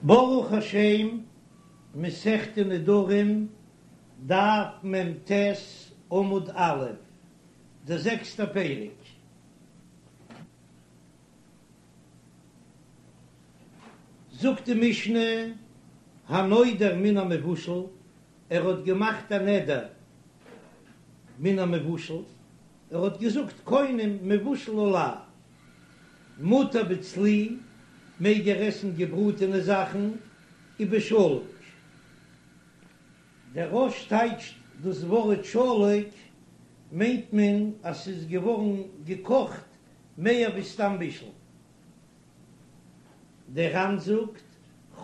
ברוך השם, מסכת נדרים, דף מ"ט, עמוד א', דער זעקסטער פרק. זאגט די משנה, הנודר מן המבושל, ער האט געמאכט א נדר מן המבושל, ער האט געזאגט קונם מבושל עלי, מותר בצלי, מעג ער עסן געבראטענע זאכן, ובשלוק. דער רא"ש טייטשט דאס ווארט שלוק מיינט מען אז ס'איז געווארן געקאכט מער ווי סתם בישול. דער ר"ן זאגט,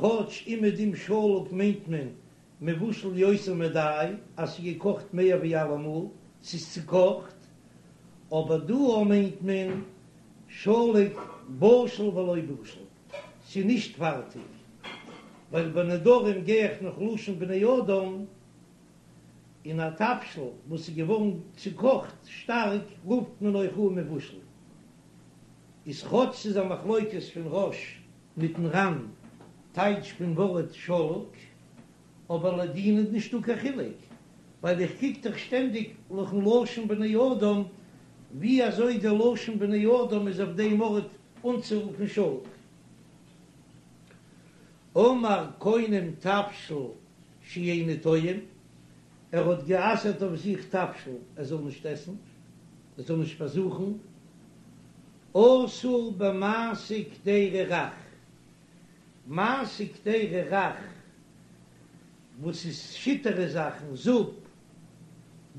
כאטש אומעדום שלוק מיינט מען מבושל יותר מדאי, אז ס'איז געקאכט מער ווי אלעמאל, ס'איז צוקאכט, אבער דא מיינט מען שלוק בשיל ולא בשיל, ס'איז נישט פארטיג, ווייל ביי נדרים גיי איך נאך לשון בני אדם, און א תבשיל וואס איז געווארן צוקאכט שטארק רופט מען אויך אן מבושל. איז כאטש ס'איז א מחלוקת פון רא"ש מיטן ר"ן טייטש פון ווארט שלוק, אבער לדין איז נישטא קיין חילוק, ווייל איך קוק דאך שטענדיג נאכן לשון בני אדם, ווי אזוי די לשון בני אדם איז אויף דעם ארט אנצורופן שלוק. אמר קונם תבשיל שאיני טועם, ער האט גע'אסר'ט אויף זיך תבשיל ער זאל נישט עסן, ער זאל נישט פארזוכן, אסור במעשה קדירה רך, מעשה קדירה רך וואס איז שיטערע זאכן, זופ,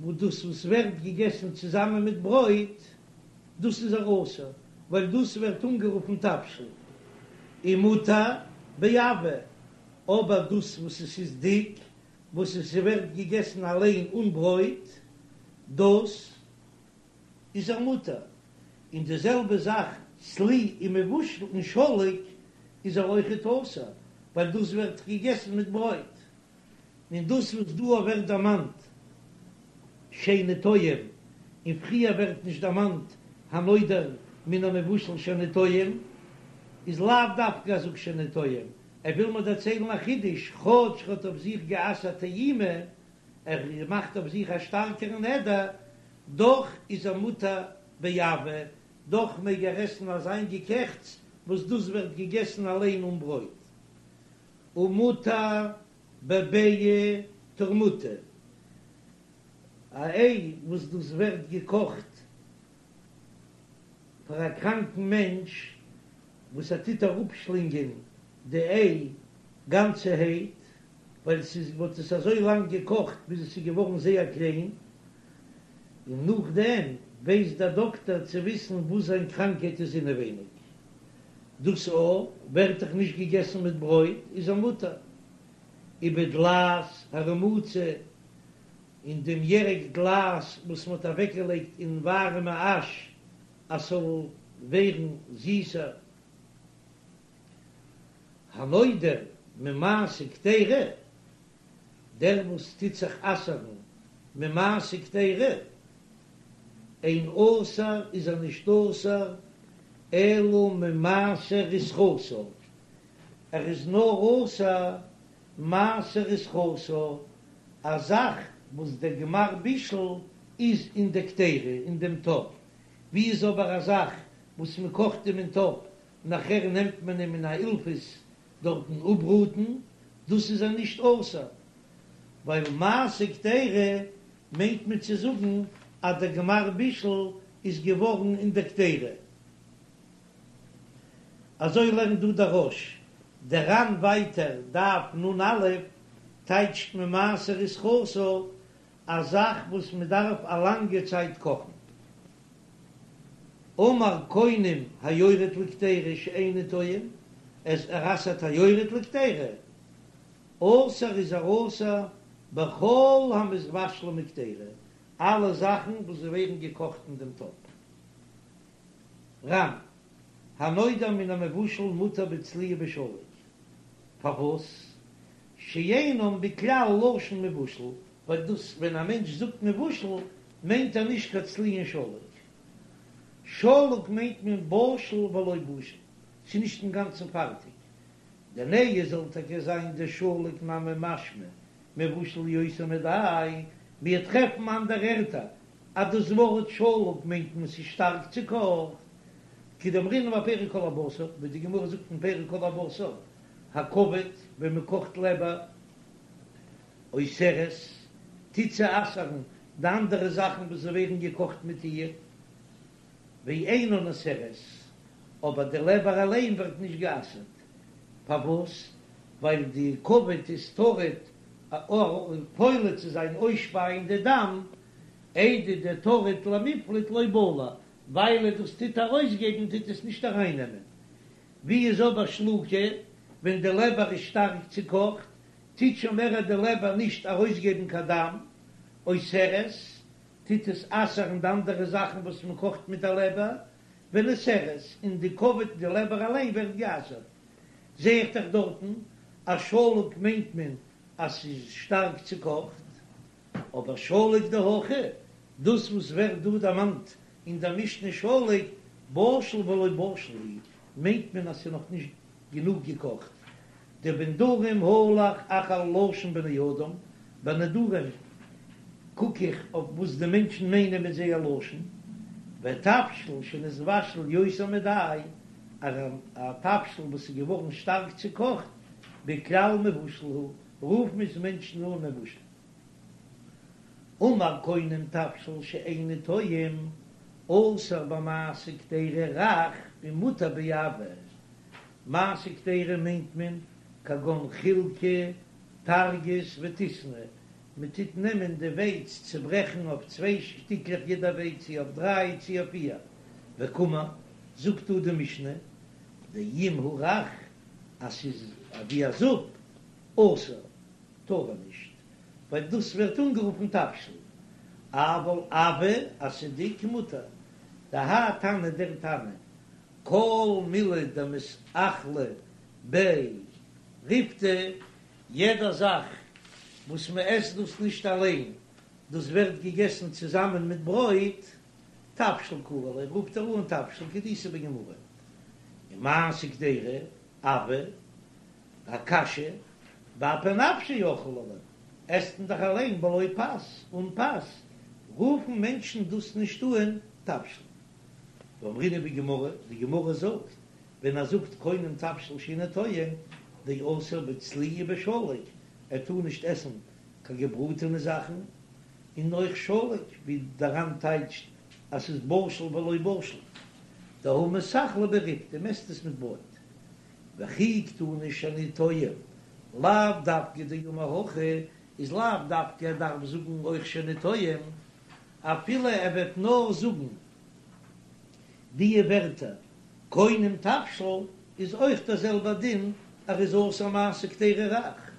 וואס דאס וואס ווערט געגעסן צוזאמען מיט ברויט, דאס איז ער אסור, ווייל דאס ווערט אנגערופן תבשיל, ומותר בעבה, אבער דאס וואס עס איז דיק, וואס עס ווערט געגעסן אליין אן ברויט, דאס איז ער מותר, און די זעלבע זאך צלי און מבושל און שלוק איז ער אויכעט אסור, ווייל דאס ווערט געגעסן מיט ברויט, און דאס וואס דא ווערט דערמאנט שאיני טועם, און פריער ווערט נישט דערמאנט הנודר מן המבושל שאיני טועם, איז לאו דווקא אז זאג שאיני טועם, ער וויל מיר דערציילן א חידוש, כאטש ער האט אויף זיך גע'אסר'ט טעימה, ער מאכט אויף זיך א שטארקערן נדר, דאך איז ער מותר בעבה, דאך מעג ער עסן אזיין געקעכטס וואס דאס ווערט געגעסן אליין אן ברויט. ומותר בביעא תורמוטא, א איי וואס דאס ווערט געקאכט פאר א קראנקן מענטש וואס ער טוט אראפשלינגען די איי גאנצערהייט, ווייל ס'איז מ'האט עס אזוי לאנג געקאכט ביז עס איז געווארן זייער קליין, און נאכדעם ווייסט דער דאקטער צו וויסן וואס זיין קראנקהייט איז אינעווייניג. דאס א ווערט דאך נישט געגעסן מיט ברויט, איז ער מותר. ובדלעת הרמוצה, און דעם ירק דלעת וואס מ'האט אוועקגעלייגט אין ווארעמע אש אז ס'זאל ווערן זיסער. הנודר ממעשה קדירה, דער וואס טוט זיך אסר'ן ממעשה קדירה, אין אסור איז ער נישט אסור אלא ממעשה רתחתא, ער איז נאר אסור מעשה רתחתא, א זאך וואס דער גמר בישול איז אין די קדירה אין דעם טאפ, ווי איז אבער א זאך וואס מען קאכט אים אין טאפ נאכער נעמט מען אים אין א אילפעס דארטן אפבראטן, דאס איז ער נישט אסור, ווייל מעשה קדירה מיינט מען צו זאגן אז דער גמר בישול איז געווארן אין דער קדירה. אזוי לערנט דא דער רא"ש, דער ר"ן ווייטער, דף נ"א, טייטשט ממעשה רתחתא א זאך וואס מען דארף א לאנגע צייט קאכן. אמר קונם היורד לקדירה שאיני טועם, אז ער אסר'ט היורד לקדירה, אסור איז ער אסור בכל המתבשלים בקדירה, אלע זאכן וואס ווערן געקאכט אין דעם טאפ. ר"ן, הנודר מן המבושל מותר בצלי ובשלוק, פארוואס? שאינם בכלל לשון מבושל, ווייל דאס ווען א מענטש זאגט מבושל מיינט ער נישט קיין צלי און שלוק. שלוק מיינט מען בשיל ולא בשיל, ס'איז נישט אינגאנצן פארטיג. דנהי זאל טאקע זיין דשלוק נמי משמע מבושל יותר מדאי, מיר טרעפן אנדערע ערטער אז דאס ווארט שלוק מיינט מען ס'איז שטארק צוקאכט, כדאמרינן בפרק כל הבשר, ווי די גמרא זאגט אין פרק כל הבשר, הכבד, ווען מען קאכט לעבער, אוסרת, טוט זי אסר'ן די אנדערע זאכן וואס ווערן געקאכט מיט איר, ואינה נאסרת, אבער די לעבער אליין ווערט נישט גע'אסר'ט, פארוואס? ווייל די כבד איז טרוד פולט צו זיין אויסשפייען די דם, איידי דטריד למיפלט לא בלע, ווייל דאס טוט ארויסגעבן טוט עס נישט ארייננעמען. ווי איז אבער שלוקא, ווען די לעבער איז שטארק צוקאכט, טוט שוין מער די לעבער נישט ארויסגעבן קיין דם, אוסרת, טוט עס אסר'ן די אנדערע זאכן וואס מען קאכט מיט די לעבער, ונאסרת, און די כבד די לעבער אליין ווערט גע'אסר'ט. זע איך דאך דארטן אז שלוק מיינט מען אז ס'איז שטארק צוקאכט, אבער שלוק דהכא, דאס וואס ווערט דא דערמאנט אין דער משנה שלוק, בשיל ולא בשיל הוא, מיינט מען אז ס'איז נאך נישט גענוג געקאכט. דבנדרים הלך אחר לשון בני אדם, ביי נדרים קוק איך אויף וואס די מענטשן מיינען מיט זייער לשון, ותבשיל שנתבשל יותר מדאי, א תבשיל וואס איז געווארן שטארק צוקאכט, בכלל מבושל הוא, רופן עס מענטשן אן מבושל. אמר קונם תבשיל שאיני טועם, אסור במעשה קדירה רך ומותר בעבה. מעשה קדירה מיינט מען כגון חילקא, טרגית וטיסנא, מען טוט נעמען די ווייץ צוברעכן אויף צוויי שטיקלעך יעדע ווייץ צי אויף דריי צי אויף פיר, וקאמר, זאגט דא די משנה, דאם הוא רך אז ס'איז ווי א זופ, אסור, טאר ער נישט, ווייל דאס ווערט אנגערופן תבשיל, אבל עבה אז ס'איז דיק מותר, דהאי תנא דער תנא, כל מילי דמתאכלא ביה ריפתא, יעדע זאך וואס מען עסט דאס נישט אליין, דאס ווערט געגעסן צוזאמען מיט ברויט, תבשיל קרי ליה, רופט ער אן תבשיל כדאיתא בגמרא, ומעשה קדירה, עבה, א קאשע, באפי נפשיה אכלי ליה, עסט מען דאך אליין בלא פת, אן פת, רופן מענטשן דאס נישט אן תבשיל. ואמרינן בגמרא, די גמרא זאגט, ווען ער זאגט קונם תבשיל שאיני טועם, דאסור בצלי ובשלוק, ער טאר נישט עסן קיין געבראטענע זאכן, און אויך שלוק, ווי דער ר"ן טייטשט אז ס'איז בשיל ולא בשיל, דהא מתאכלא ביה ריפתא, מ'עסט עס מיט ברויט. וכי קתני שאני טועם, לאו דווקא דאמר הכי, איז לאו דווקא ער דארף זאגן אויך שאני טועם, אפילו ער וועט נאר זאגן די ווערטער קונם תבשיל איז אויך דער זעלבער דין ער איז אסור מעשה קדירה רך.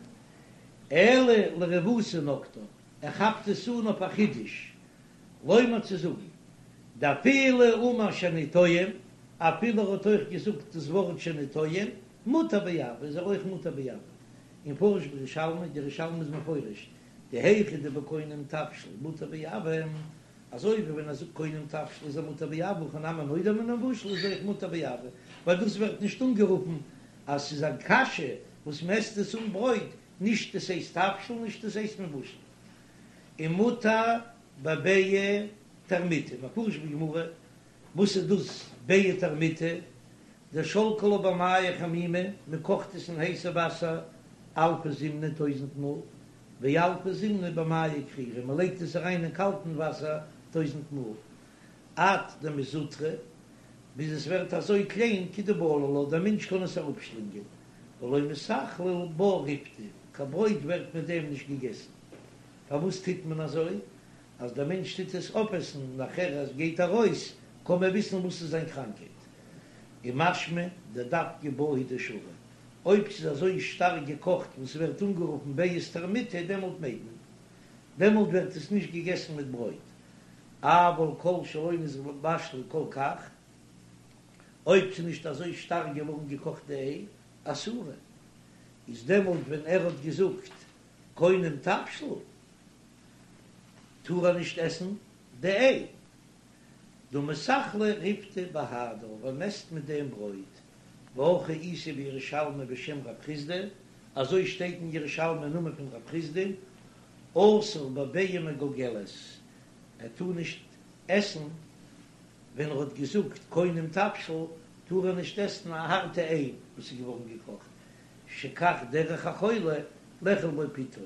אלא לרבותא נקטה, ער כאפט עס אן אויף א חידוש, לומר צו זאגן דאפילו אמר שאני טועם, אפילו ער האט אויך געזאגט דאס ווארט שאני טועם, מותר בעבה איז ער אויך מותר בעבה. ומפרש בירושלמי, די ירושלמי איז מפרש דהיכא דבקונם תבשיל מותר בעבה, אזוי ווי ווען ער זאגט קונם תבשיל איז ער מותר בעבה, הכא נמי נודר מן המבושל איז אויך מותר בעבה, ווייל דאס ווערט נישט אנגערופן אז ס'איז א קאשע וואס מ'עסט עס אן ברויט, נישט עס הייסט תבשיל נישט עס הייסט מבושל. ומותר בביעא טרמיטא, מפרש בגמרא, וואס איז דאס ביעא טרמיטא? דשלקי לה במיא חמימי, מען קאכט עס אין הייסע וואסער אלפא זימנא טויזענט מאל, ואלפא זימנא במיא קרירי, מען לייגט עס אריין אין קאלטן וואסער טויזענט מאל, עד דמזוטרא, ביז עס ווערט אזוי קליין כדבלע לה, דער מענטש קען עס אראפשלינגען, ולא מתאכלא בה ריפתא, קיין ברויט ווערט מיט דעם נישט געגעסן. פארוואס טוט מען אזוי? אז דער מענטש טוט עס אויפעסן נאכער אז גייט ארויס קען מען וויסן וואס איז זיין קראנקייט. און משמע דדווקא בה הוא דשרי, אויב ס'איז אזוי שטארק געקאכט וואס ס'ווערט אנגערופן ביעא טרמיטא דעמאלט מעג מען, דעמאלט ווערט עס נישט געגעסן מיט ברויט, אבל כל שלא נתבשלה כל כך, אויב ס'איז נישט אזוי שטארק געווארן געקאכט די איי, אסורה, איז דעמאלט ווען ער האט געזאגט קונם תבשיל טאר ער נישט עסן די איי. דהא מתאכלא ריפתא בהדה, ווייל מ'עסט מיט דעם ברויט. והכי איתא בירושלמי בשם רב חסדא, אזוי שטייט אין ירושלמי אין נאמען פון רב חסדא, אסור בביעה מגולגלת, ער טאר נישט עסן ווען ער האט געזאגט קונם תבשיל, טאר ער נישט עסן א הארטע איי וואס איז געווארן געקאכט, שכך דרך החולה לאכול בו פיתו,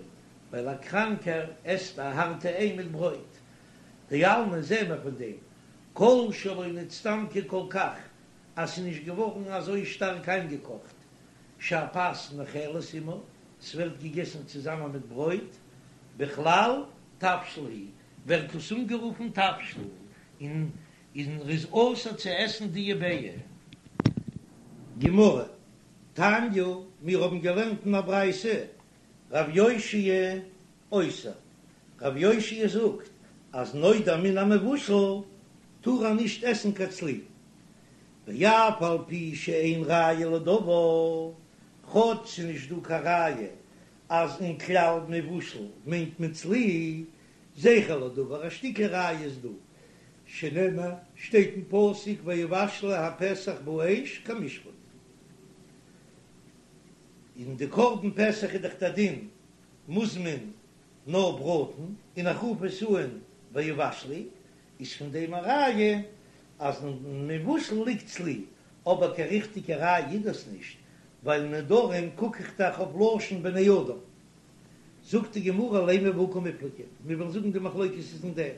ווייל א קראנקער עסט א הארטע איי מיט ברויט. דאלמא זעהן מיר פון דעם, כל שלא נצטמקה כל כך, אז ס'איז נישט געווארן אזוי שטארק איינגעקאכט, שהפת נאכלת עמה, ס'ווערט געגעסן צוזאמען מיט ברויט, בכלל תבשיל הוא, ווערט דאס אנגערופן תבשיל, און און ר'איז אסור צו עסן די ביעה. גמרא, תניא, מיר האבן געלערנט אין א ברייתא, רב יאשיה אוסר, רב יאשיה זאגט אז נודר מן המבושל טאר ער נישט עסן קיין צלי, ואף על פי שאין ראיה לדבר, כאטש ס'איז נישט דא קיין ראיה אז אין כלל מבושל מיינט מען צלי, זכר לדבר, א שטיקל ראיה איז דא, שנאמר, שטייט אין פסוק ויבשלו הפסח באש כמשפט. אין די קרבן פסח איז דאך דער דין מוז מען נאר בראטן, און איך רוף עס אן ויבשלו, איז פון דעם א ראיה אז אין מבושל ליגט צלי, אבער קיין ריכטיגע ראיה איז דאס נישט, ווייל נדרים קוק איך דאך אויף לשון בני אדם. זאגט די גמרא לימא בהא קמיפלגי, מיר וועלן זאגן די מחלוקת איז אין דעם,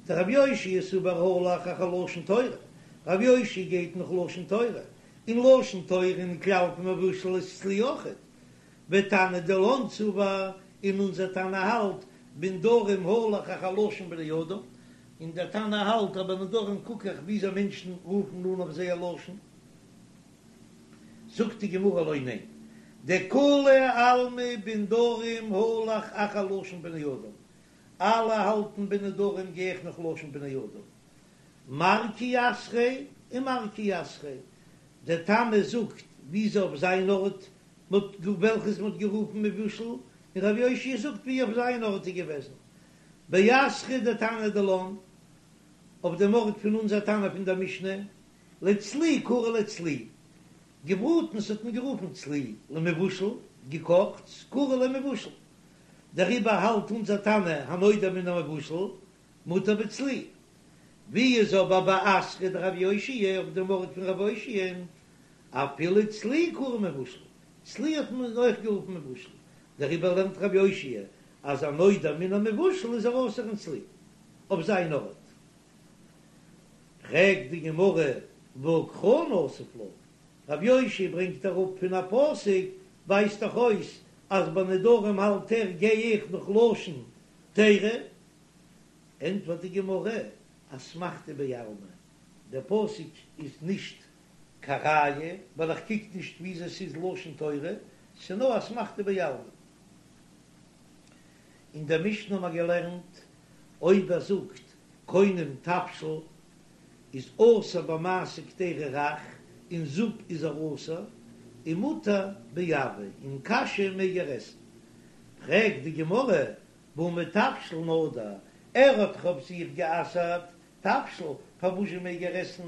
דרב יאשיה סבר הלך אחר לשון תורה, רב יאשיה גייט נאך לשון תורה, און לשון תורה אין כלל פון מבושל איז צלי אויכעט, ותנא דילן סבר, און אונזער תנא האלט בנדרים הלך אחר לשון בני אדם, און דער תנא האלט אז ביי נדרים קוק איך וויאזוי מענטשן רופן אן אויף זייער לשון. זאגט די גמרא לא, ניין, דכולי עלמא בנדרים הלך אחר לשון בני אדם, אלע האלטן ביי נדרים גיי איך נאך לשון בני אדם, מר כי אתריה און מר כי אתריה, דער תנא זאגט וויאזוי אויף זיין ארט מ'האט וועלכעס מ'האט גערופן מבושל, און רב יאשיה זאגט ווי אויף זיין ארט איז געוועזן באתרא דתנא דילן, אויף דעם ארט פון אונזער תנא פון דער משנה, לצלי קרי ליה צלי, געבראטנס האט מען גערופן צלי, למבושל, געקאכטס, קרי ליה מבושל. דעריבער האלט אונזער תנא הנודר מן המבושל מותר בצלי. ווי איז אבער באתרא דרב יאשיה אויף דעם ארט פון רב יאשיה'ן, אפילו צלי קרי מבושל, צלי האט מען אויך גערופן מבושל, דעריבער לערנט רב יאשיה אז הנודר מן המבושל איז ער אסור אין צלי אויף זיין ארט. פרעגט די גמרא והא קרא נסיב לה, רב יאשיה ברענגט אראפ פון א פסוק, ווייזט דאך אויס אז ביי נדרים האלט ער גיי איך נאך לשון תורה, ענטפערט די גמרא אסמכתא בעלמא, דער פסוק איז נישט קיין ראיה ווייל איך קוק נישט וויאזוי ס'איז לשון תורה, ס'איז נאר אסמכתא בעלמא. אין דער משנה האבן מיר געלערנט אויב ער זאגט קונם תבשיל איז אסור במעשה קדירה רך, אין זופ איז ער אסור, און מותר בעבה, אין קאשע מעג ער עסן. פרעגט די גמרא, והא מתבשיל נדר, ער האט דאך אויף זיך גע'אסר'ט תבשיל, פארוואזשע מעג ער עסן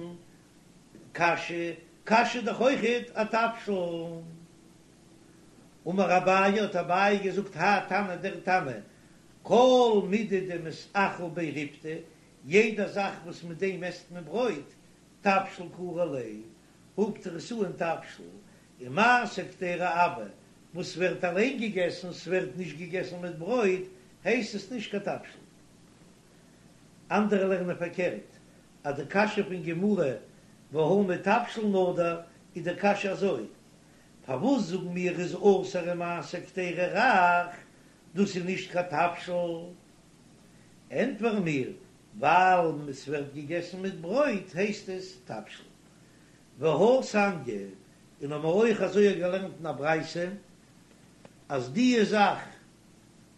קאשע, קאשע איז דאך אויכעט א תבשיל. אמר אביי, האט אביי געזאגט, האי תנא דער תנא, כל מידי דמתאכל ביה ריפתא, יעדע זאך וואס מיט דעם עסט מען ברויט, תבשיל קרי ליה, רופט ער עס אן תבשיל, און מעשה קדירה עבה, וואס ווערט אליין געגעסן, ס'ווערט נישט געגעסן מיט ברויט, הייסט עס נישט קיין תבשיל. אנדערע לערנען פארקערט, אז די קשיא פון גמרא והא מתבשיל נדר איז די קשיא אזוי, פארוואס זאגן מיר איז אסור אין מעשה קדירה רך, דאס איז נישט קיין תבשיל? ענטפערן מיר, ווייל עס ווערט געגעסן מיט ברויט הייסט עס תבשיל. והא תניא, און האבן מיר אויך אזוי געלערנט אין א ברייתא, אז דיע זאך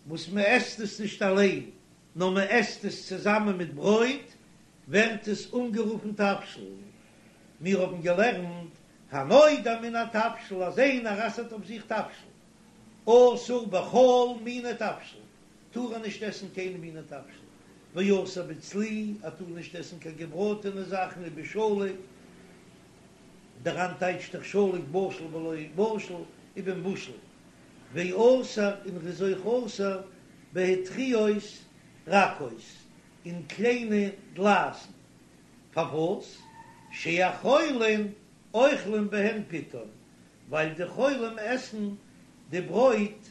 וואס מען עסט עס נישט אליין, נאר מען עסט עס צוזאמען מיט ברויט, ווערט עס אנגערופן תבשיל. מיר האבן געלערנט, הנודר מן התבשיל, אז איינער אסר'ט אויף זיך תבשיל, אסור בכל מיני תבשיל, טאר ער נישט עסן קיינע מיני תבשיל, ואסור בצלי, ער טאר נישט עסן קיין געבראטענע זאכן ובשלוק. דער ר"ן טייטשט דאך שלוק בשיל בלא בשיל ובמבושל, ואסור און ר'איז אויך אסור בהטריות רכות אין קליינע דלעת'ן, פארוואס? שהחולין אוכלים בהן פיתן, ווייל די חולים עסן די ברויט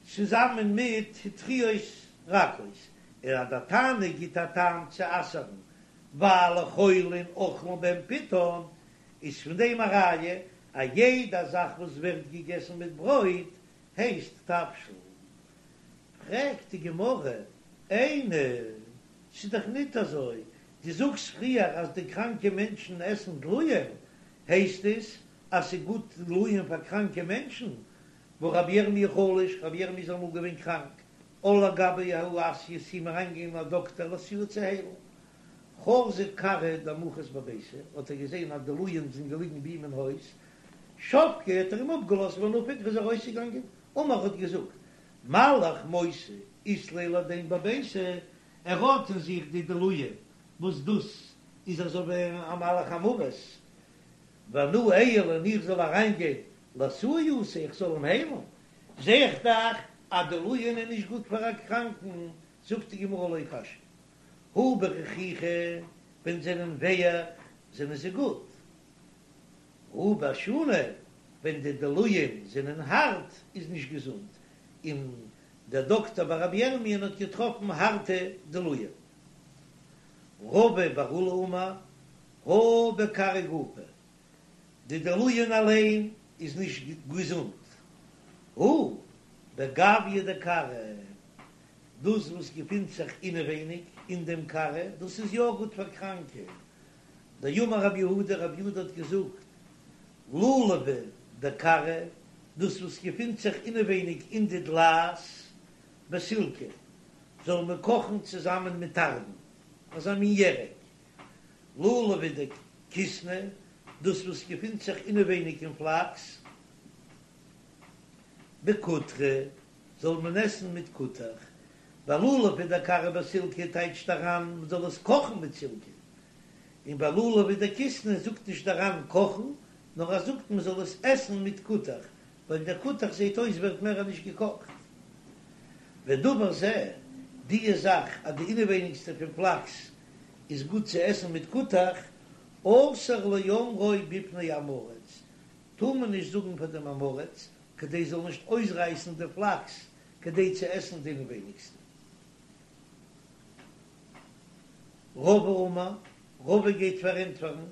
צוזאמען מיט הטריות רכות, און אז דער תנא גיט א טעם צו אסר'ן ווייל חולין אוכלים בהן פיתן, איז פון דעם א ראיה אז יעדע זאך וואס ווערט געגעסן מיט ברויט הייסט תבשיל. פרעגט די גמרא, איני, ס'איז דאך ניט אזוי, דו זאגסט פריער אז די קראנקע מענטשן עסן דלועין, הייסט עס אז ס'איז גוט דלועין פאר קראנקע מענטשן? והא רבי ירמי' חלש, רבי ירמי' איז אמאל געווען קראנק, על לגביה ההוא אסיא איז צו אים אריינגעגאנגען א דאקטער לאתויי צו היילן. חזא כרעא דמחת בביתיה, האט ער געזען אז דלועין זענען געליגן ביי אים אין הויז, שבקיה האט ער אים אפגעלאזט ונפק איז ער ארויסגעגאנגען, אמר האט געזאגט, מלאך מותא אית ליה לדין בביתיה, ער האט אין זיך די דלועין וואס דאס איז אזוי ווי א מלאך המוות, ואנא איעול און איך זאל אריינגיין לאתויי אתא איך זאל אים היילן, זע איך דאך אז דלועין איז נישט גוט פאר א קראנקן, זאגט די גמרא לא קשיא, הא ברכיכי, ווען זענען ווייך זענען זיי גוט, הא באשוני, ווען די דלועין זענען הארט איז נישט געזונט, און דער דאקטער ביי רבי ירמיה'ן האט געטראפן הארטע דלועין. רבא בר עולא אמר, הא בכרעא גופא, די דלועין אליין איז נישט געזונט, הא בגויא דכרעא, דאס וואס געפינט זיך אינעווייניג אין דעם קרע, דאס איז יא גוט פאר קראנקע. דאמר רב יהודה, רב יהודה האט געזאגט, לולבא דכרעא, דאס וואס געפינט זיך אינעווייניג אין די דלעת בסילקא, זאל מען קאכן צוזאמען מיט תרדין, אזא מין ירק. לולבא דכיתנא, דאס וואס געפינט זיך אינעווייניג אין פלאקס, בקוטרא, זאל מען עסן מיט כותח, ווייל לולבא דכרעא בסילקא טייטשט דער ר"ן מען זאל עס קאכן מיט סילקא, און ביי לולבא דכיתנא זאגט נישט דער ר"ן קאכן, נאר ער זאגט מען זאל עס עסן מיט כותח, ווייל דער כותח זעט אויס ווערט מער נישט געקאכט. ודבר זה, דיע זאך אז די אינעווייניגסטע פון פלאקס איז גוט צו עסן מיט כותח, אסור לאומרו בפני עם הארץ, טאר מען נישט זאגן פאר דעם עם הארץ, כדי זאל נישט אויסרייסן די פלאקס כדי צו עסן די אינעווייניגסטע. רבא אמר, רבא גייט פארענטפערן,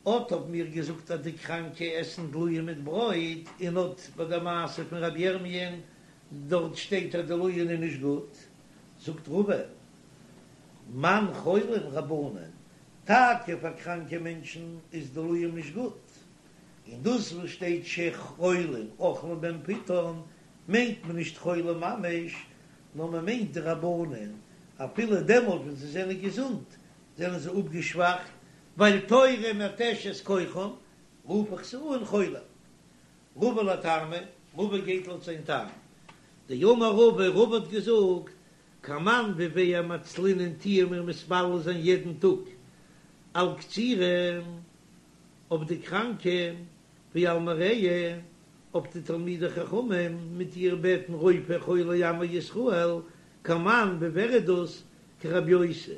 אט האבן מיר געזאגט אז די קראנקע עסן דלועין מיט ברויט, און אט ביי די מעשה פון רבי ירמיה'ן דארט שטייט אז דלועין איז נישט גוט, זאגט רבא, מאן חולים רבנן, טאקע פאר קראנקע מענטשן איז דלועין נישט גוט, און דאס וואס שטייט שחולים אוכלים בהם פיתן מיינט מען נישט חולים ממש, נאר מען מיינט די רבנן, אפילו דעמאלט ווען זיי זענען געזונט זענען זיי אפגעשוואכט, ווייל תורה מתשת כוחם, רוף איך זיי אן חולים. רבא לטעמיה, רבא גייט לויט זיין טעם. דאמר רבא, רבא האט געזאגט, כמאן ווי ווער מצלינן טוען מיר מתפלל זיין יעדן טאג על קצירי אויף די קראנקע ועל מרעי אויף די תלמידי חכמים מיט איר בעטן רופא חולי עמו ישראל כמאן ווי ווער איז דאס כרבי יוסי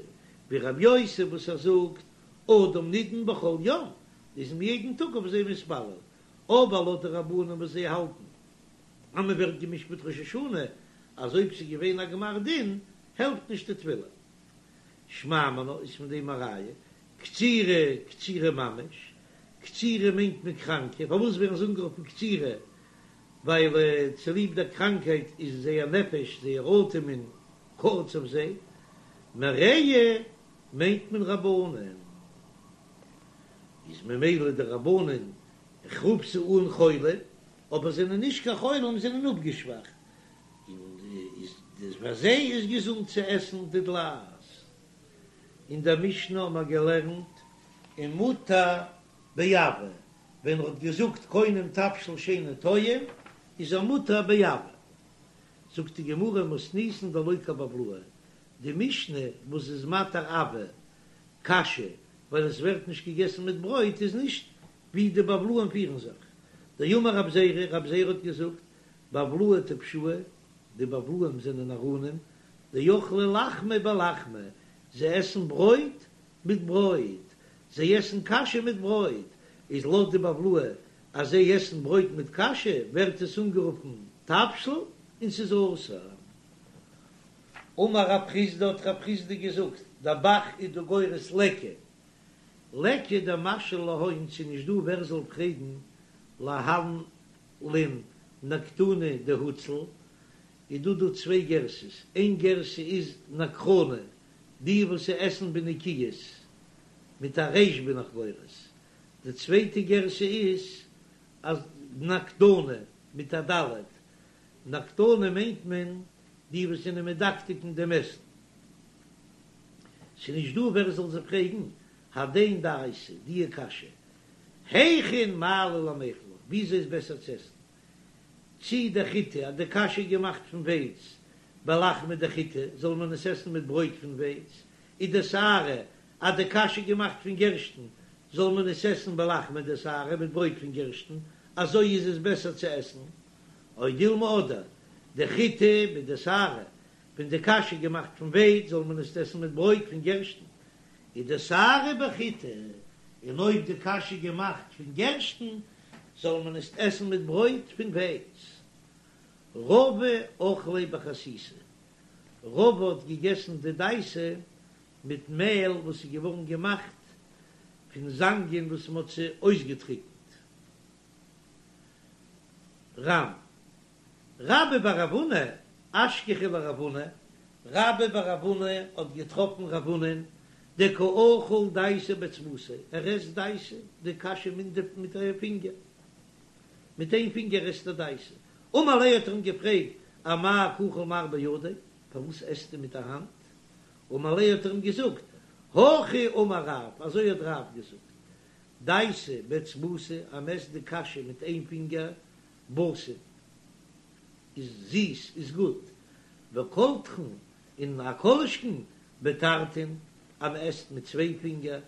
ווי רבי יוסי וואס ער זאגט אדם נידון בכל יום איז מען יעדן טאג אויף זיי מתפלל אבער לויט די רבנן וואס זיי האלטן אז מען ווערט גע'משפט ראש השנה אז אויב ס'איז געווען א גמר דין העלפט נישט די תפילה. שמע מינה איז פון דעם א ראיה, קצירי קצירי ממש, קצירי מיינט מען קראנקע, פארוואס ווערן זיי אנגערופן קצירי? ווייל צוליב דער קראנקהייט איז זייער נפש, זייער אטעמען, קורץ אויף זיי, מרעי מיינט מען רבנן, איז ממילא די רבנן, איך רוף זיי אן חולים, אבער זענען נישט קיין חולים, זענען אפגעשוואכט, און איז פאר זיי איז געזונט צו עסן די דלעת. אין דער משנה האבן מיר געלערנט ומותר בעבה, ווען ער האט געזאגט קונם תבשיל שאינו טועם איז ער מותר בעבה. זאגט די גמרא מתניתין דלא כבבלאי, די משנה וואס איז מתיר עבה קשיא ווייל עס ווערט נישט געגעסן מיט ברויט איז נישט. ווי די בבלאים פירן זיך. דאמר רב זירא, רב זירא האט געזאגט, בבלאי טפשאי, די בבלאים זענען נאראנים, דאכלי לחמא בלחמא, זיי עסן ברויט מיט ברויט, זיי עסן קאשע מיט ברויט, איז לויט די בבלאי אז זיי עסן ברויט מיט קאשע ווערט עס אנגערופן תבשיל און ס'איז אסור. אמר רב חסדא האט רב חסדא געזאגט, דער ב"ח איז דא גורס ליכא, ליכא דמשאיל להון ס'איז נישט דא ווער זאל פרעגן להלין נקטני דהוצל, איז דא דא צוויי גרסאות, איין גרסה איז נקרני, די וואס עסן בנקיות, מיט א ריש בין איך גורס, די צווייטע גרסה איז אז נקדני מיט א ד', נקדני מיינט מען די וואס זענען מדקדק אין דעם עסן. ס'איז נישט דא ווער זאל זיי פרעגן, הדין דייסה, דיע קשיא, היכין מעלי למיכל, וויאזוי איז בעסער צו עסן, צי דחיטי, אז די קאשע איז געמאכט פון ווייץ, בלחמא דחיטי, זאל מען עס עסן מיט ברויט פון ווייץ, ודשערי, אז די קאשע איז געמאכט פון גערשטן, זאל מען עס עסן בלחמא דשערי, מיט ברויט פון גערשטן, אזוי איז עס בעסער צו עסן. או דילמא אדער, דחיטי בדשערי, ווען די קאשע איז געמאכט פון ווייץ, זאל מען עס עסן מיט ברויט פון גערשטן, ודשערי בחיטי, און אויב די קאשע איז געמאכט פון גערשטן, זאל מען עס עסן מיט ברויט פון ווייץ. רבא אכליה בחסיסי, רבא האט געגעסן די דייסע מיט מעל וואס איז געווארן געמאכט פון זאנגען וואס מען האט זיי אויסגעטריקנט. ר"ן. רבה בר רב הונא, אשכחיה לרב הונא, רבה בר רב הונא האט געטראפן רב הונא'ן דקא אכיל דייסה באצבעתיה, ער עסט דייסה, די קאשע מיט א פינגער, מיט איין פינגער עסט ער דייסה, אמר ליה האט ער אים געפרעגט, אמאי קא אכיל מר בידיה, פארוואס עסטו מיט א האנט? אמר ליה האט ער אים געזאגט, הכי אמר רב, אזוי האט רב געזאגט, דייסה באצבעתא, אז מ'עסט די קאשע מיט איין פינגער, בתים איז זיס, איז גוט, וקולטחין און א כל שכן בתרתין אז מען עסט מיט צוויי פינגער,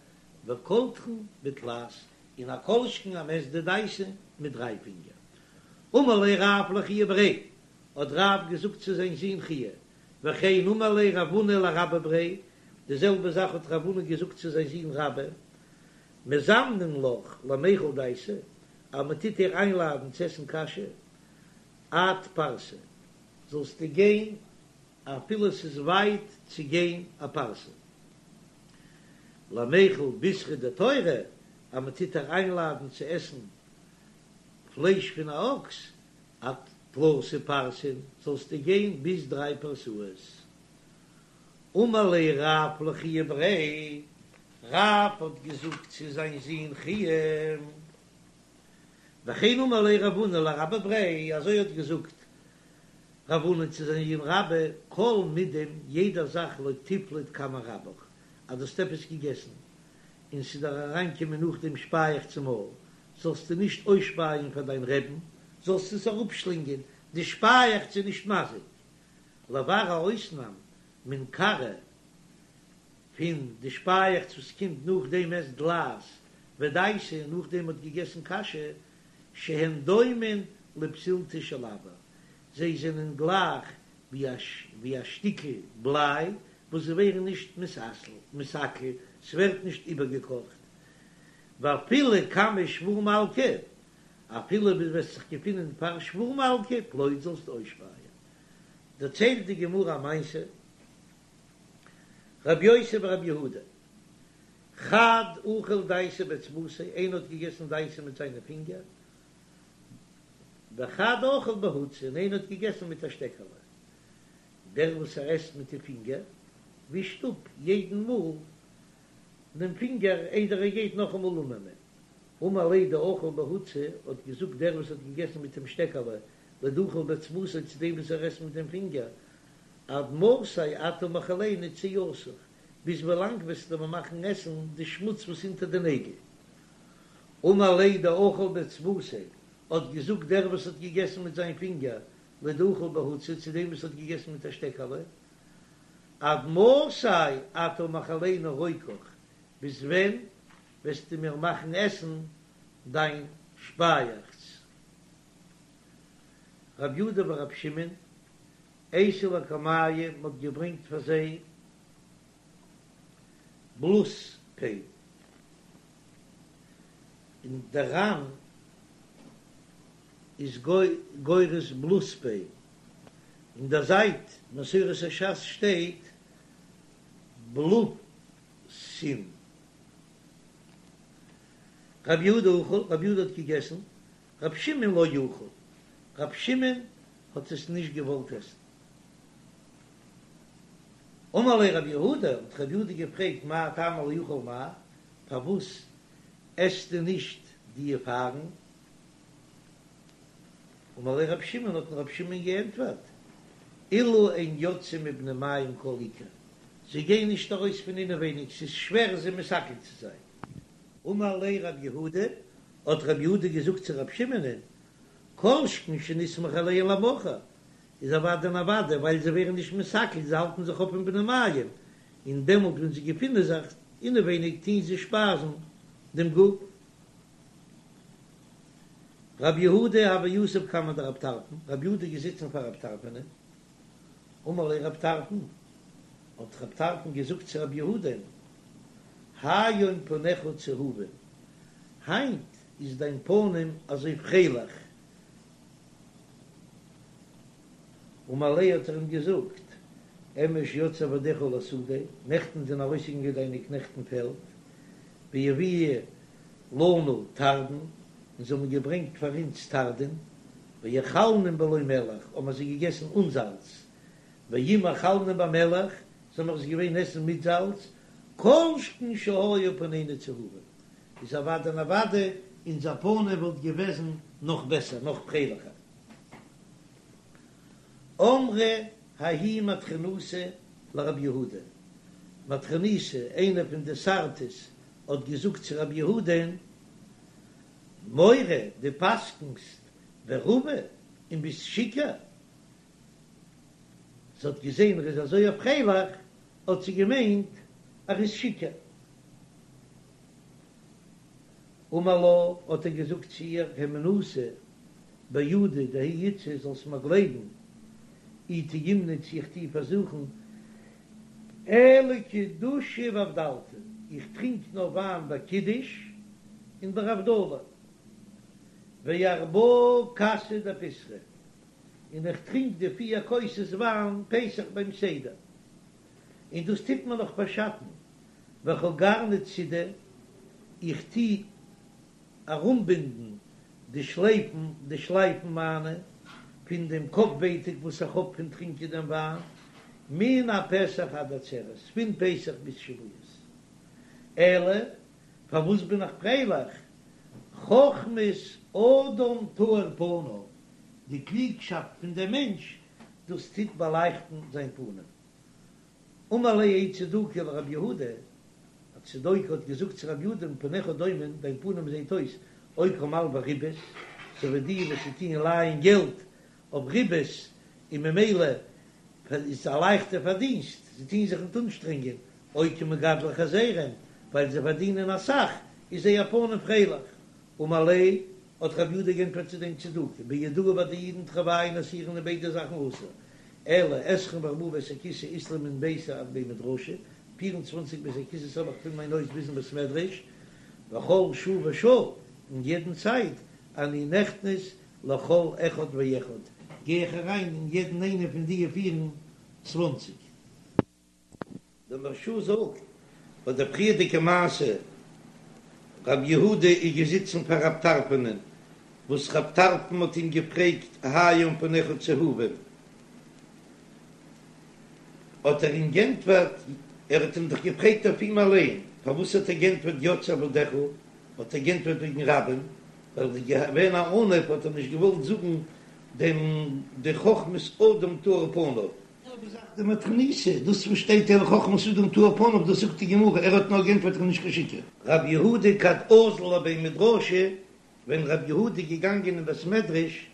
וקולטחין בתלת און א כל שכן אז מען עסט די דייסע מיט דריי פינגער. אמר ליה רב לחייא בריה, האט רב געזאגט צו זיין זון חייא, וכן אמר ליה רב הונא לרבה בריה, די זעלבע זאך האט רב הונא געזאגט צו זיין זון רבה, מזמנין לך למיכל דייסה, אז מען טוט דיר איינלאדן צו עסן קאשע, עד פרסה, זאלסטו גיין אפילו עס איז ווייט צו גיין א פרסה. למיכל בישרא דתורא, אז מען טוט דיר איינלאדן צו עסן פלייש פון א אקס, עד תלתא פרסין, זאלסטו גיין ביז דריי פרסאות. אמר ליה רב לחייא בריה, רב האט געזאגט צו זיין זון חייא, וכן אמר ליה רב הונא לרבה בריה, אזוי האט געזאגט רב הונא צו זיין זון רבה, כל מידם, יעדע זאך לא תפלוט קמי רבך, אז דו האסט עפעס געגעסן און ס'איז דיר אריינגעקומען נאכדעם שפייעכץ אין מויל, זאלסטו נישט אויסשפייען פאר דיין רעבן, זאלסט עס אראפשלינגען, די שפייעכץ איז נישט מזיק. לבר א אויסנאם מן כרעא פון די שפייעכץ וואס קומט נאכדעם מ'עסט דלעת ודייסה און נאכדעם מ'האט געגעסן קאשע שהן דומין לפתילתא של אבר זיי זענען גלייך ווי א שטיקל בליי וואס זיי ווערן נישט מתעכל ס'ווערט נישט איבערגעקאכט ואפילו קמי שבור מלכא אפילו אויב וועסט זיך געפינען פאר שבור מלכא פלוט זאלסטו אויסשפייען דערציילט די גמרא א מעשה, רבי יוסי ברבי יהודה, חד אכל דייסה באצבעתיה, איינער האט געגעסן דייסה מיט זיינע פינגער, וחד אכל בהוצא, און איינער האט געגעסן מיט א שטעקעלע. דער וואס ער עסט מיט די פינגער, ווישט אפ יעדן מאל דעם פינגער איידער ער גייט נאכאמאל אננעמען. אמר ליה דאכל בהוצא, האט געזאגט דער וואס האט געגעסן מיט דעם שטעקעלע, לדאכל באצבעתיה צו דעם וואס ער עסט מיט דעם פינגער, עד מתי אתה מאכילני צואתך, ביז ווילאנג וועסטו מיר מאכן עסן די שמוץ וואס אונטער די נעגל? אמר ליה דאכל באצבעתיה, האט געזאגט דער וואס האט געגעסן מיט זיין פינגער, לדאכל בהוצא צו דעם וואס האט געגעסן מיט א שטעקעלע, עד מתי אתה מאכילני רוקך, ביז ווען וועסטו מיר מאכן עסן. דיין שפייעכץ. רב יהודה ורב שמעון, אייתו לקמייהו, מ'האט געברענגט פאר זיי בלוספין, און דער ר"ן איז גורס בלוספין, אין דער זייט מסורת הש"ס שטייט בלוסין. רב יהודה אכל, רב יהודה האט געגעסן, רב שמעון לא אכל, רב שמעון האט עס נישט געוואלט עסן. אמר ליה רב יהודה, האט רב יהודה געפרעגט מאי טעמא לא אכל מר, פארוואס עסטו נישט די פארן? אמר ליה רב שמעון, האט אים רב שמעון געענטפערט, אלו אין יוצאין מבני מעים כל עיקר, זיי גייען נישט ארויס פון אינעווייניג, ס'איז שווער זיי מסכל צו זיין. אמר ליה רב יהודה, האט רב יהודה געזאגט צו רב שמעונ'ען, כל שכן שנסמוך עליהן למחר, איז אוודאי און אוודאי, ווייל זיי ווערן נישט מתעכל, זיי האלטן זיך אויף אין בני מעים, און דעמאלט ווען זיי געפינען זיך אינעווייניג טוען זיי שפייזן דעם גוף. רב יהודה הוה יתיב קמיה דרב טרפון, רב יהודה איז געזיצן פאר רב טרפונ'ען, אמר ליה רב טרפון, האט רב טרפון געזאגט צו רב יהודה'ן, היום פניך צהובין, היינט איז דיין פנים אזוי פרייליך, אמר ליה האט ער אים געזאגט, אמש יצאו עבדיך לשדה, נעכטן זענען ארויסגעגאנגען דיינע קנעכט אין פעלד, והביאו לנו תרדין, און זיי האבן געברענגט פאר אונז תרדין, ואכלנום בלא מלח, האבן מיר זיי געגעסן אן זאלץ, ואם אכלנום במלח, זאל מיר עס געווען עסן מיט זאלץ, כל שכן שהיו פנינו צהובין, איז אוודאי און אוודאי אונזער פנים וואלט געוועזן נאך בעסער, נאך פרייליכער. אמרה ההיא מטרוניתא לרב יהודה, מטרוניתא, איינע פון די שר'טעס, האט געזאגט צו רב יהודה'ן, מורה, דו פסק'נסט ורביא און ביסט שיכור? זי האט געזען ער איז אזוי פרייליך, האט זי געמיינט ער איז שיכור. אמר לה, האט ער געזאגט צו איר, הימנותא בידא דההיא איתתא, זאלסט מיר גלייבן, אי טעימנא צו איך טו פארזוכן, אלא קידושא ואבדלתא, איך טרינק נאר וויין ביי קידוש און ביי הבדלה, וארבעה כסי דפסחא, און איך טרינק די פיר כוסות וויין פסח ביים סדר, און דאס טוט מיר נאך פארשאטן, וחגרנא צידי, איך טו ארומבינדן די שלייפן, די שלייפן מיינע, פון דעם קאפ-ווייטאג וואס איך האב פון טרינקען דעם וויין, מן הפסח עד עצרת, פון פסח ביז שבועות. אלא, פארוואס בין איך פרייליך? חכמת אדם תאיר פניו, די קלוגשאפט פון דעם מענטש, דאס טוט באלייכטן זיין פנים. אמר ליה ההוא צדוקי לרב יהודה, א צדוקי האט געזאגט צו רב יהודה פניך דומין, דיין פנים זעט אויס או כמלוי ריבית, אזוי ווי די וואס טוען לייען געלט אויף ריבית, און ממילא איז א לייכטע פארדינסט, זיי טוען זיך ניט אנשטרענגען, או כמגדלי חזירים, ווייל זיי פארדינען אסאך, איז זייער פנים פרייליך. אמר ליה, האט רב יהודה גענטפערט צו דעם צדוקי, ביהודאי ביי די אידן תרוייהו אסירן איז ביידע זאכן אסור, אלא עשרים וארבעה בית הכסא אית לי מן ביתי עד בי מדרשא, 24 בית הכסא'ס האב איך פון מיין הויז ביזן בית מדרש, וכל שעה ושעה, אין יעדן צייט, אני נכנס לכל אחד ואחד, גיי איך אריין אין יעדן איינע פון די 24. דער מהרש"א זאגט ביי דער פריערדיגע מעשה, רב יהודה איז געזיצן פאר רב טרפונ'ען, וואס רב טרפון האט אים געפרעגט היום פניך צהובים, האט ער אים גענטפערט, ער האט אים דאך געפרעגט אויף אים אליין, פארוואס האט ער גענטפערט יצאו עבדיך, האט ער גענטפערט וועגן רבים, ווייל ער איז געווען א עניו האט ער נישט געוואלט זאגן דעם די חכמת אדם תאיר פניו. זעלבע זאך די מטרוניתא, דאס וואס שטייט אלא חכמת אדם תאיר פניו דאס זאגט די גמרא, ער האט נאר גענטפערט איך בין נישט קיין שיכור. רב יהודה כד אזל לבי מדרשא, ווען רב יהודה איז געגאנגען אין בית מדרש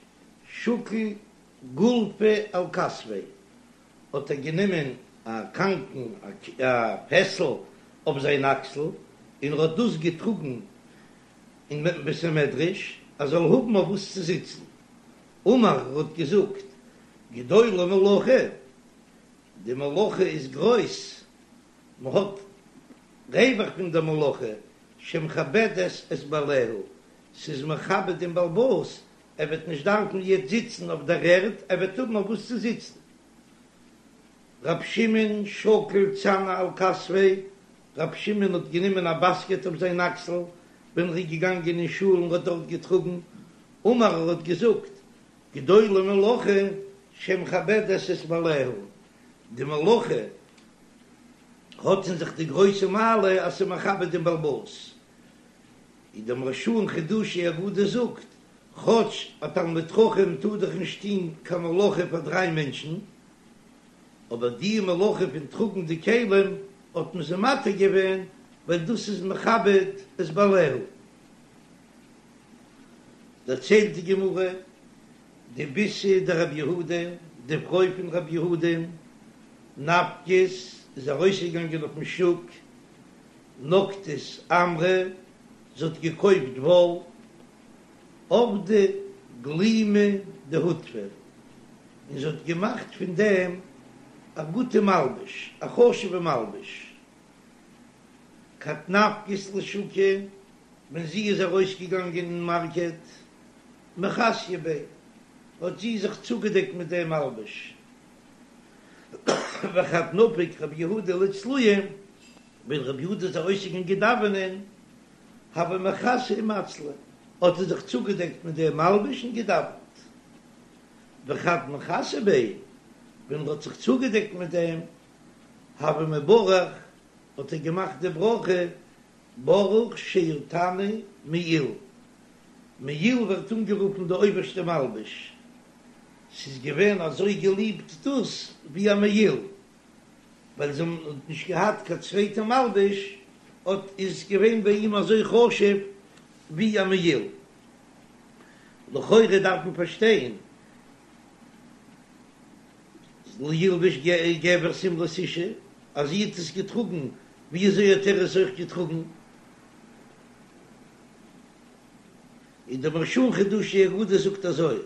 שקיל גולפא על כתפיה, האט ער גענומען א קאנקן א פעסל אויף זיין אקסל און ער האט דאס געטראגן. אין בית המדרש ער זאל האבן אויף וואס צו זיצן. אמר ער האט געזאגט, גדולה מלאכה, די מלאכה איז גרויס, מען האט רווח פון די מלאכה, שמכבדת את בעליה, ס'איז מכבד דעם בעל הבית, ער וועט נישט דארפן יעצט זיצן אויף דער ערד, ער וועט האבן אויף וואס צו זיצן. רב שמעון שקיל צנא על כתפיה, רב שמעון האט גענומען א באסקעט אויף זיין אקסל ווען ער איז געגאנגען אין שול און האט דארט געטראגן, אמר ער האט געזאגט, גדולה מלאכה שמכבדת את בעליה, די מלאכה האט אין זיך די גרויסע מעלה אז ס'איז מכבד דעם בעל הבית. ווי דער מהרש"א אין חידושי אגדות זאגט, כאטש א תלמיד חכם טאר דאך נישט טון קיין מלאכה פאר דריי מענטשן, אבער די מלאכה פון טראגן די כלים האט מען זיי מתיר געווען ווייל דאס איז מכבד את בעליה. דערציילט די גמרא, די ביתא דרב יהודה, די פרוי פון רב יהודה, נפקת איז ארויסגעגאנגען אויפן שוק, נקטת עמרא, זי האט געקויפט וואל, עבדה גלימא דהוטבא, און זי האט געמאכט פון דעם א גוטע מלבוש, א חשובע מלבוש. כד נפקת לשוקא, ווען זי איז ארויסגעגאנגען אין מארקעט, מכסיא ביה, האט זי זיך צוגעדעקט מיט דעם מלבוש. וכד נפיק רבי יהודה לצלויי, ווען רבי יהודה איז ארויסגעגאנגען דאווענען, הוה מכסי ומצלי, האט ער זיך צוגעדעקט מיט דעם מלבוש און געדאווענט. וכד מכסי ביה, ווען ער האט זיך צוגעדעקט מיט דעם, הוה מברך, האט ער געמאכט די ברכה, ברוך שעטני מעיל. מעיל ווערט אנגערופן די אויבערשטע מלבוש, ס'איז געווען אזוי געליבט דאס ווי א מעיל, ווייל זיי האבן נישט געהאט קיין צווייטע מלבוש, האט איז געווען ביי אים אזוי חשוב ווי א מעיל. לכאורה דארף מען פארשטיין, לא ילבש גבר שמלת אשה, אז זי האט עס געטראגן, ווי אזוי האט ער עס אויך געטראגן? און דער מהרש"א אין חידושי אגדות זאגט אזוי,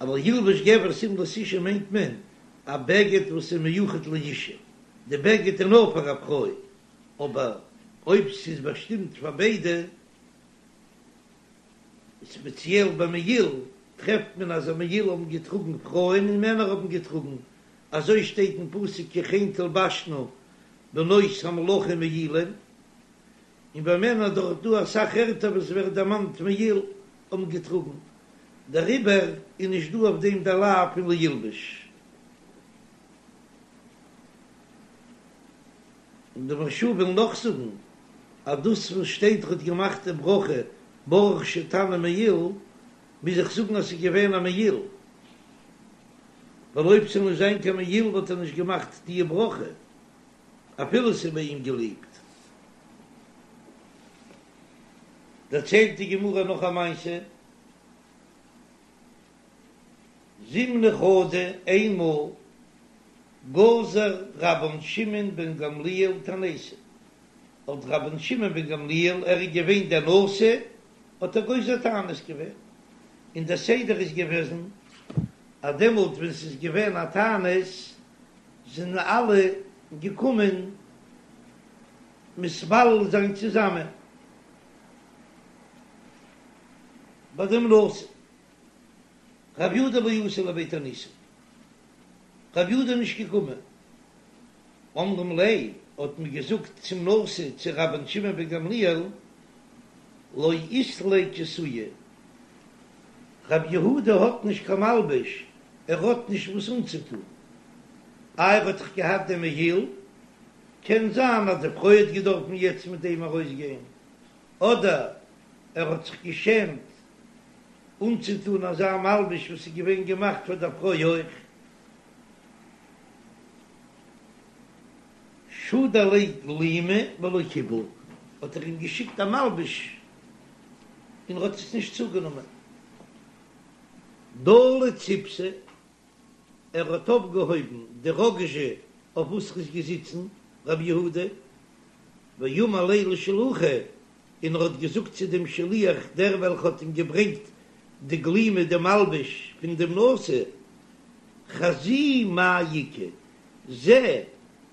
לא ילבש גבר שמלת אשה מיינט מען א בגד וואס איז מיוחד לאשה, די בגד איז נאר פאר א פרוי, אבער אויב ס'איז באשטימט פאר ביידע, ספעציעל ביי מעיל, טרעפט מען אז א מעיל האבן געטראגן פרויען און מענער האבן געטראגן, אזוי שטייט אין פסוק כי כן תלבשנה בנות המלכים מעילים, און ביי מענער דאך דא אסאך ערטער וואס ווערט דערמאנט מעיל האבן געטראגן, דעריבער איז נישט דא אויף דעם דער לאו פון לא ילבש. און די מהרש"א וויל נאך זאגן אז דאס וואס שטייט ר'האט געמאכט די ברכה ברוך שעטני מעיל, מוז איך זאגן אז ס'איז געווען א מעיל, ווייל אויב ס'זאל נישט זיין קיין מעיל וואלט ער נישט געמאכט די ברכה אפילו ס'איז ביי אים געליבט. דערציילט די גמרא נאך א מעשה, זימנא חדא, איינמאל גזר רבן שמעון בן גמליאל תעניתא, האט רבן שמעון בן גמליאל, ער איז געווען דער נשיא, האט ער גוזר תענית געווען, און דער סדר איז געוועזן אז דעמאלט ווען ס'איז געווען א תענית זענען אלע געקומען מתפלל זיין צוזאמען ביי דעם נשיא. רב יהודה לא אתא לבי תעניתא, רב יהודה איז נישט געקומען. אמרים ליה, האט מען געזאגט צום נשיא צו רבן שמעון בן גמליאל, לא אית ליה כסויא, רב יהודה האט נישט קיין מלבוש, ער האט נישט וואס אנצוטון. איי ער האט דאך געהאט דעם מעיל, קען זיין אז די פרוי האט געדארפן יעצט מיט דעם ארויסגיין, אדער ער האט זיך געשעמט אנצוטון אזא מלבוש וואס איז געווען געמאכט פאר דער פרוי אויך. שדר ליה גלימא ולא קיבל, האט ער אים געשיקט א מלבוש און ער האט עס נישט צוגענומען. דלי ציפתא, ער האט אויפגעהויבן די ראגאזשע אויף וואס ער איז געזיצן, רבי יהודה, ואמר ליה לשלוחא. און ער האט געזאגט צו דעם שליח, דער וועלכע האט אים געברענגט די גלימא, די מלבוש פון דעם נשיא, חזי מאי איכא, זע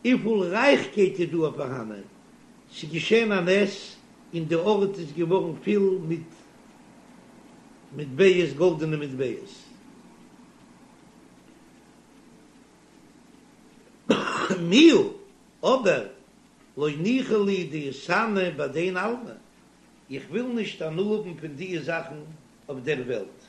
וויפיל רייכקייט איז דא פארהאנען, ס'איז געשען א נס און די ארט איז געווארן פיל מיט מטבעות, גאלדענע מטבעות. מיהו, אבער לא ניחא לי דאיתהני בהדין עלמא, איך וויל נישט הנאה האבן פון דיע זאכן אויף דער וועלט.